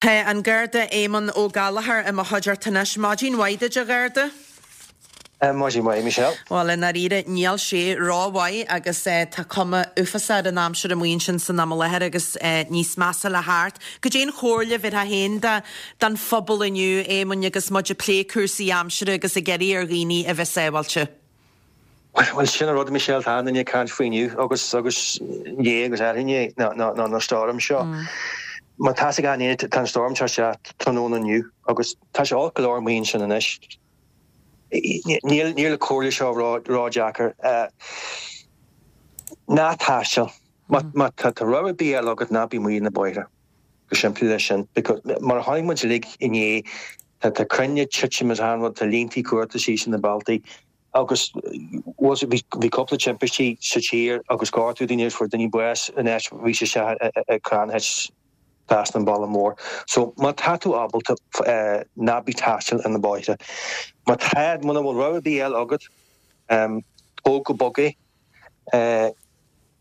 Tá an Garda Éamonn Ó Gallchóir i mo chuideachta anois. Maidin mhaith duit, a Gharda. Maidin mhaith, Michelle. Bhuel, i ndáiríre, níl sé rómhaith agus tá cuma uafásach ar an aimsir amuigh ansin san am i láthair agus níos measa le theacht. Goidé an chomhairle a bhéarfá féin don phobal inniu, Éamoinn, agus muid ag plé cúrsaí aimsire agus ag iarraidh ar dhaoine a bheith sábháilte? Bhuel, sin an rud, Michelle, tá achan duine ag caint faoi inniu agus agus inné agus arú-inné ná ná na storm seo. Má tá fhios ag achan duine, tá an storm seo isteach tráthnóna inniu agus tá sé olc go leor amuigh ansin anois. Níl níl an comhairle seo ró ródheacair. Ná taisteal. Má má tá tá rogha ar bith eile agat ná bí amuigh ar na bóithre. Go simplí leis sin. Because mar a chonaic muid uilig inné tá tá crainn ag titim is achan rud, tá líntí cuarta síos ar na bealtaí. Agus was it, bhí cúpla timpistí sa tír agus gortú daoine agus fuair daoine bás in áit bhí sé isteach i crann thit trasna an bealach mór. So má tá tú ábalta ná bí taisteal ar na bóithre. Má tá, muna bhfuil rogha ar bith eile agat, tóg go bog é.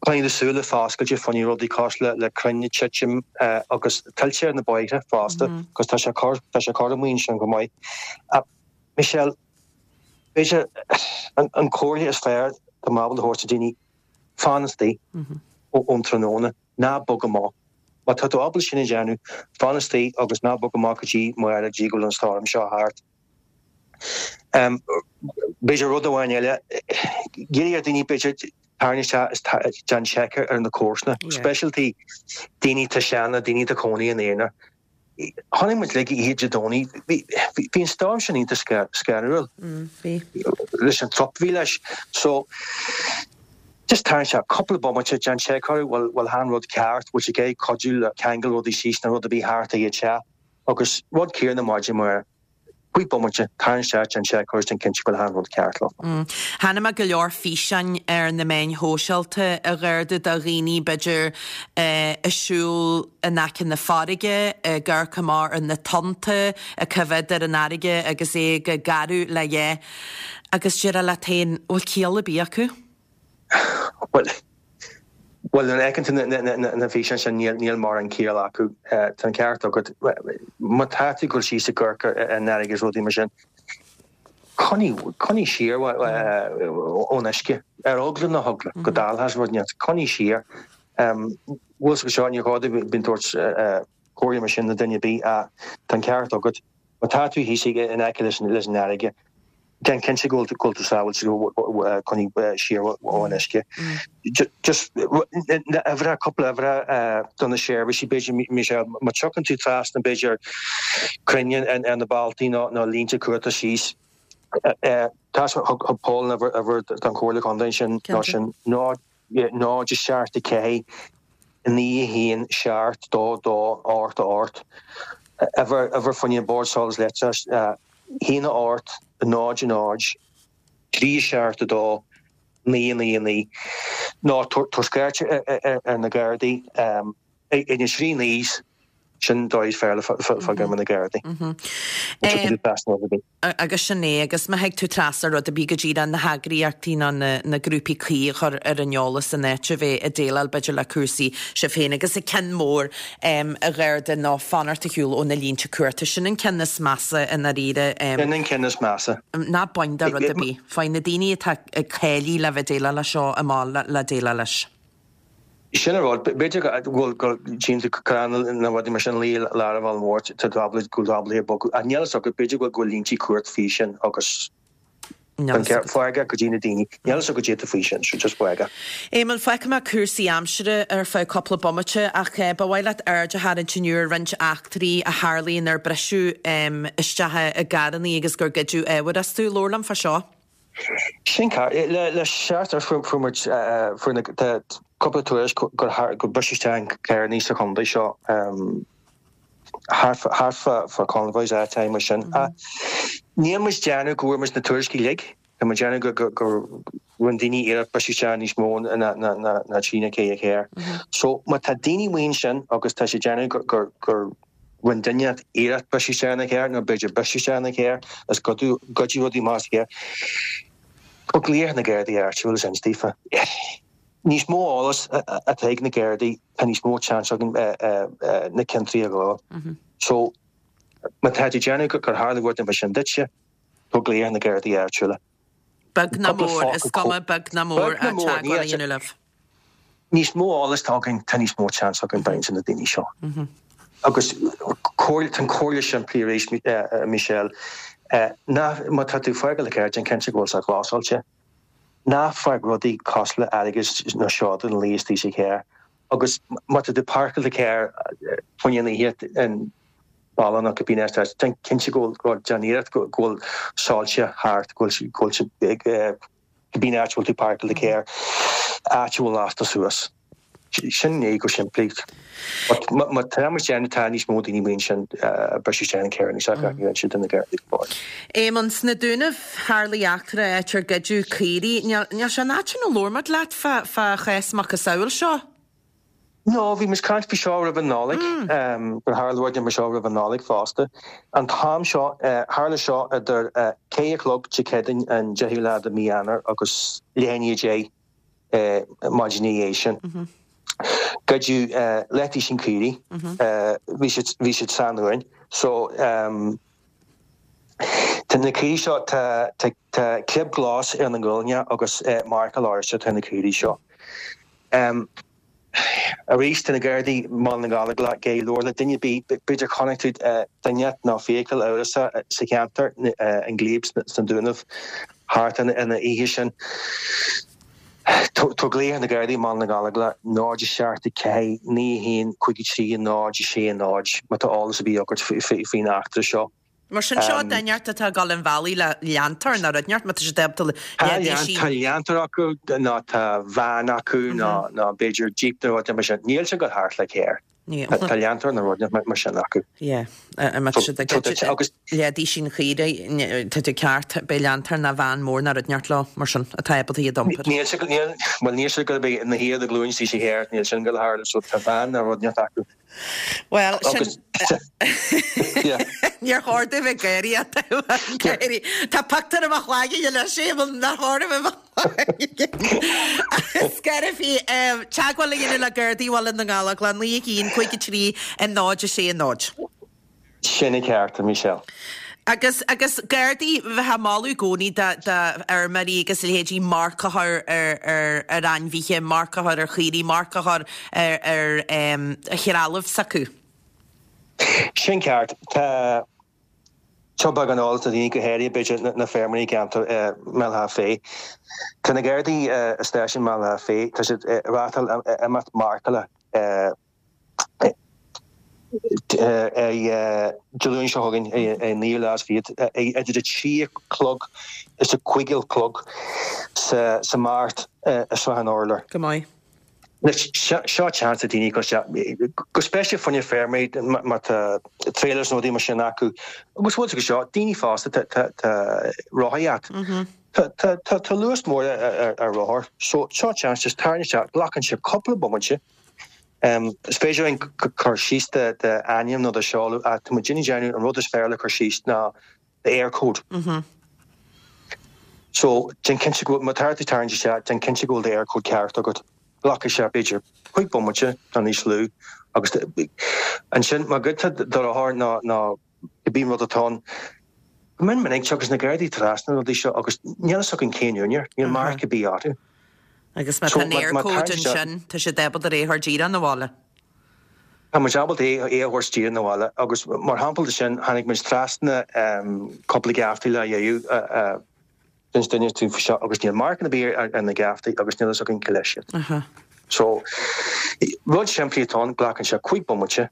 Coinnigh do súile foscailte fá choinne rudaí cosúil le crainn ag titim agus tuilte ar na bóithre fosta, agus tá sé cur, tá sé cur amuigh ansin go maith. Michelle, B'fhéidir an comhairle is fearr atá mé ábalta a thabhairt do daoine, fan istigh ón tráthnóna, ná bog amach. Má tá tú ábalta sin a dhéanamh, fan istigh agus ná bog amach go dtí amárach, go dtí go bhfuil an stoirm seo thart. B'fhéidir rud amháin eile, iarraidh ar daoine b'fhéidir tarraingt isteach is déan seic ar na comharsana, speisialta daoine atá sean, daoine atá cónaí ina aonar. Chonaic muid uilig oíche Dé Domhnaigh, bhí an stoirm sin iontach scanrúil leis an trup a bhí leis. So, just tarraingt isteach cúpla bomaite, déan seic orthu, bhfuil bhfuil achan rud ceart, bhfuil siad ag iarraidh cuidiú le ceangal rudaí síos nó rud ar bith thart ar an teach. Agus rud céanna maidin amárach. Cúig bomaite, tarraingt isteach, déan seic orthu, déan cinnte go bhfuil achan rud ceart leo. Chonaic mé go leor físeáin ar na meáin shóisialta, a Gharda, de dhaoine, b'fhéidir, ag siúl in aice na farraige, ag amharc amach ar na tonnta, ag coimhéad ar an fharraige agus é ag gearradh le dhá. Agus déarfá leat féin, bhfuil ciall ar bith acu? Bhuel, bhuel, nuair a fheiceann tú na físeáin sin, níl mórán ciall acu. Tá an ceart agat. Má tá tú ag dul síos ag amharc ar an fharraige is rudaí mar sin, coinnigh, coinnigh siar ón uisce. Ar eagla na heagla go dtarlódh rud inteacht, coinnigh siar. Bhfuil fhios agat seo, níor chóir domh bheith ag tabhairt comhairle mar sin do duine ar bith ach tá an ceart agat. Má tá tú thíos in aice leis an fharraige, Déan cinnte go bhfuil tú sábháilte, coinnigh siar ón uisce. Just uimhreacha, cúpla uimhreacha do na seirbhísí, b'fhéidir, Michelle, má tiocfaidh tú trasna, b'fhéidir, crainn ar na bealtaí nó línte cumhachta síos, tá, thug Paul an uimhir don Chomhairle Contae ansin, nó sin 0, 0, 7, 4, 9, 1, 7, 2, 2, 8, 8. Uimhir, uimhir fá choinne Bord Solais Leictreachais, 1, 8, 0, 0, 3, 7, 2, 9, 9, 9. Nó tabhair scairt ar na Gardaí ag na trí naois, sin dóigh is fearr le fáil ar na Gardaí. Agus sin é, agus má thig tú trasna rud ar bith go díreach na heagraíochtaí nó na grúpaí cuí a chur ar an eolas in áit a bheith ag déileáil b'fhéidir le cúrsaí sibh féin. Agus an ceann mór, a Gharda, ná fanacht ar shiúl ó na línte cumhachta. Sin an ceann is measa i ndáiríre. Sin an ceann is measa. Ná bain de rud ar bith. Faigh na daoine atá cáilithe le bheith ag déileáil leis seo amach le déileáil leis. Sin an rud. B'fhéidir go bhfuil go dtchíonn tú crann nó rudaí mar sin luí i lár an bhaile mhóir, tá tú ábalta go bhfuil tú ábalta é a bhogadh. Ach níl fhios agat, b'fhéidir go bhfuil línte cumhachta faoi sin agus fág go dtí na daoine. Níl fhios agat goidé faoi sin, so just fág. Éamonn, fágfaidh mé cúrsaí aimsire ar feadh cúpla bomaite ach ba mhaith leat aird a tharraingt inniu ar roinnt eachtraí a tharlaigh inar briseadh isteach i gcarrannaí agus gur goideadh ábhair astu. Labhair liom fá seo. Sin ceart. Le seachtain fuair muid, fuair na, tá cúpla tuairisc gur gur briseadh isteach i gcarrannaí sa chontae seo thart fá convoys áiteacha mar sin. Níl muid déanamh go bhfuair muid na tuairiscí uilig, tá muid déanamh go gur rinne daoine iarracht briseadh isteach níos mó ná trí nó ceithre charr. So má tá daoine amuigh ansin agus tá siad déanamh gur gur Rinne duine iarracht briseadh isteach ina charr, nó b'fhéidir briseadh isteach ina charr is goideadh rudaí amach as an gcarr. Cuir glaoch ar na Gardaí áitiúil is inis daofa. Níos mó eolas atá ag na Gardaí, tá níos mó seans againn na ciontaí a ghabháil. So, má tá tú ag déanamh gur tharla rud mar sin duitse, tabhair glaoch ar na Gardaí áitiúla. Beag ná mór, is cuma beag ná mór, teagmháil a dhéanamh libh. Níos mó eolas atá againn, tá níos mó seans againn baint de na daoine seo. Agus tá an comhairle simplí arís, Michelle, ná má tá tú ag fágáil do charr, déan cinnte go bhfuil sé glásáilte. Ná fág rudaí cosúil le airgead nó seoda ina luí istigh sa charr. Agus má tá tú ag páirceáil do charr fá choinne an oíche i mbaile nó cibé áit, déan cinnte go bhfuil, déan iarracht go bhfuil soilse thart, go bhfuil sé cibé áit a bhfuil tú ag páirceáil do charr, áit a bhfuil lasta suas. Sin é go simplí. But má tá muid déanamh tá níos mó daoine amuigh ansin ag briseadh isteach in carranna is ag inse do na Gardaí go fóill. Éamonn, sna Dúnaibh, tharlaigh eachtra áit ar goideadh caoirigh. Níl sé an áit sin a labhair muid leat fá chás macasamhail seo. No, bhí muid ag caint faoi seo roimh an Nollaig, gur tharla rud mar seo roimh an Nollaig fosta. An t-am seo, tharla seo idir 4 a chlog Dé Céadaoin an 10ú lá de mhí Eanáir agus leath i ndiaidh 10 maidin ina dhiaidh sin. Goideadh leathduisín caoirigh, bhí siad, bhí siad san uain. So, tá na caoirigh seo, tá, tá, tá clib glas ar na nguailne agus marcáil oráiste atá ar na caoirigh seo. Arís, tá na Gardaí i mBaile na nGallóglach ag labhairt le duine ar bith, b'fhéidir chonaic tú duine nó feithicil amhrasach sa cheantar, an Glebe sna Dúnaibh, thart an oíche sin. Tabhair glaoch ar na Gardaí i mBaile na nGallóglach, 0 7 4 9 1 5 3 0 6 0, má tá eolas ar bith agat faoin eachtra seo. Mar sin seo duine inteacht atá ag dul an bhealaigh le leantóir nó rud inteacht má tá siad ábalta leithéidí Tá leantóir acu nó tá veain acu nó nó b'fhéidir jíp nó rud mar sin. Níl siad ag dul thart le carr. Tá leantóir nó rud mar sin acu. Yeah. Má tá siad ag goid leathduisín caoirigh tá tú ceart beidh leantóir nó veain mór nó rud inteacht leo mar sin atá ábalta iad a iompar. Níl siad níl bhuel níl siad ag dul a bheith ina shuí ar do ghlúin istigh sa charr níl sin ag dul a tharlú so tá veain nó rud inteacht acu. Bhuel, sin... Níor chóir dom bheith ag gáirí ach gáirí. Tá pictiúr i mo chloigeann anois, Éamonn, nár chóir dom bheith i mo chloigeann. Scairbhí, teagmháil a dhéanamh le Gardaí Bhaile na nGallóglach, 9 1 5 3 0 6 0. Sin an ceart, a Michelle. Agus, agus Gardaí, bheifeá ag moladh i gcónaí do, do fheirmeoirí agus a leithéidí marc a chur ar, ar, ar ainmhithe, marc a chur ar chaoirigh, marc a chur ar, ar em, threalamh s'acu. Sin ceart. Tá, seo beagán eolas do dhaoine, go háirithe b'fhéidir na, na feirmeoirí i gceantar eh, mBéal Átha Féith. Tá na Gardaí eh, i stáisiún mBéal Átha Féith, tá siad ag reáchtáil imeacht marcála eh, Dé Luain seo chugainn, an naoú lá is fichead, idir a 3 a chlog is a 5 a chlog sa Mart i Srath an Urláir. Go maith. Seo seans do daoine go go speisialta fá choinne feirmeoirí má tá trailers nó rudaí mar sin acu agus bhfuil go seo daoine fásta tá rothaí agat. Tá luas mór ar rothar so seo seans just tarraing isteach glacann sé cúpla bomaite Is féidir linn cur síos d'ainm nó do sheoladh ach tá muid ag déanamh an rud is fearr le cur síos ná d'Eircode. So, déan cinnte go bhfuil, má tá tú ag tarraingt isteach, déan cinnte go bhfuil d'Eircode ceart agat. Glacfaidh sé b'fhéidir 5 bomaite nó níos lú agus ansin má ghoidtear do rothar nó nó cibé rud atá ann, go mion minic tagann na Gardaí trasna na rudaí seo agus níl a fhios againn cén úinéir, níl marc ar bith orthu. Agus má tá an Eircode ansin, tá siad ábalta é a thabhairt díreach 'na bhaile. Tá muid ábalta é a thabhairt díreach 'na bhaile agus mar shampla de sin, tháinig muid trasna cúpla geaftaí lá dhéanamh d'inis duine dúinn faoi seo agus níl marc ar bith ar na geaftaí agus níl a fhios againn cé leis iad. So, rud simplí atá ann, glacann sé 5 bomaite,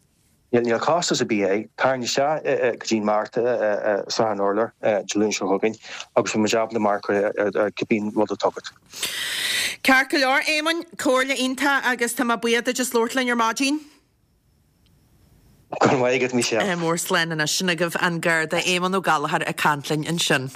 Níl costas ar bith air. Tarraing isteach go dtí an Mart i Srath an Urláir Dé Luain seo chugainn agus beidh muid ábalta marc a chur ar cibé rud atá agat. Ceart go leor, Éamoinn, comhairle iontach agus tá mé buíoch duit as labhairt linn ar maidin. Go raibh maith agat, Michelle. Mór slán anois. Sin agaibh an Garda Éamonn Ó Gallchóir ag caint linn ansin.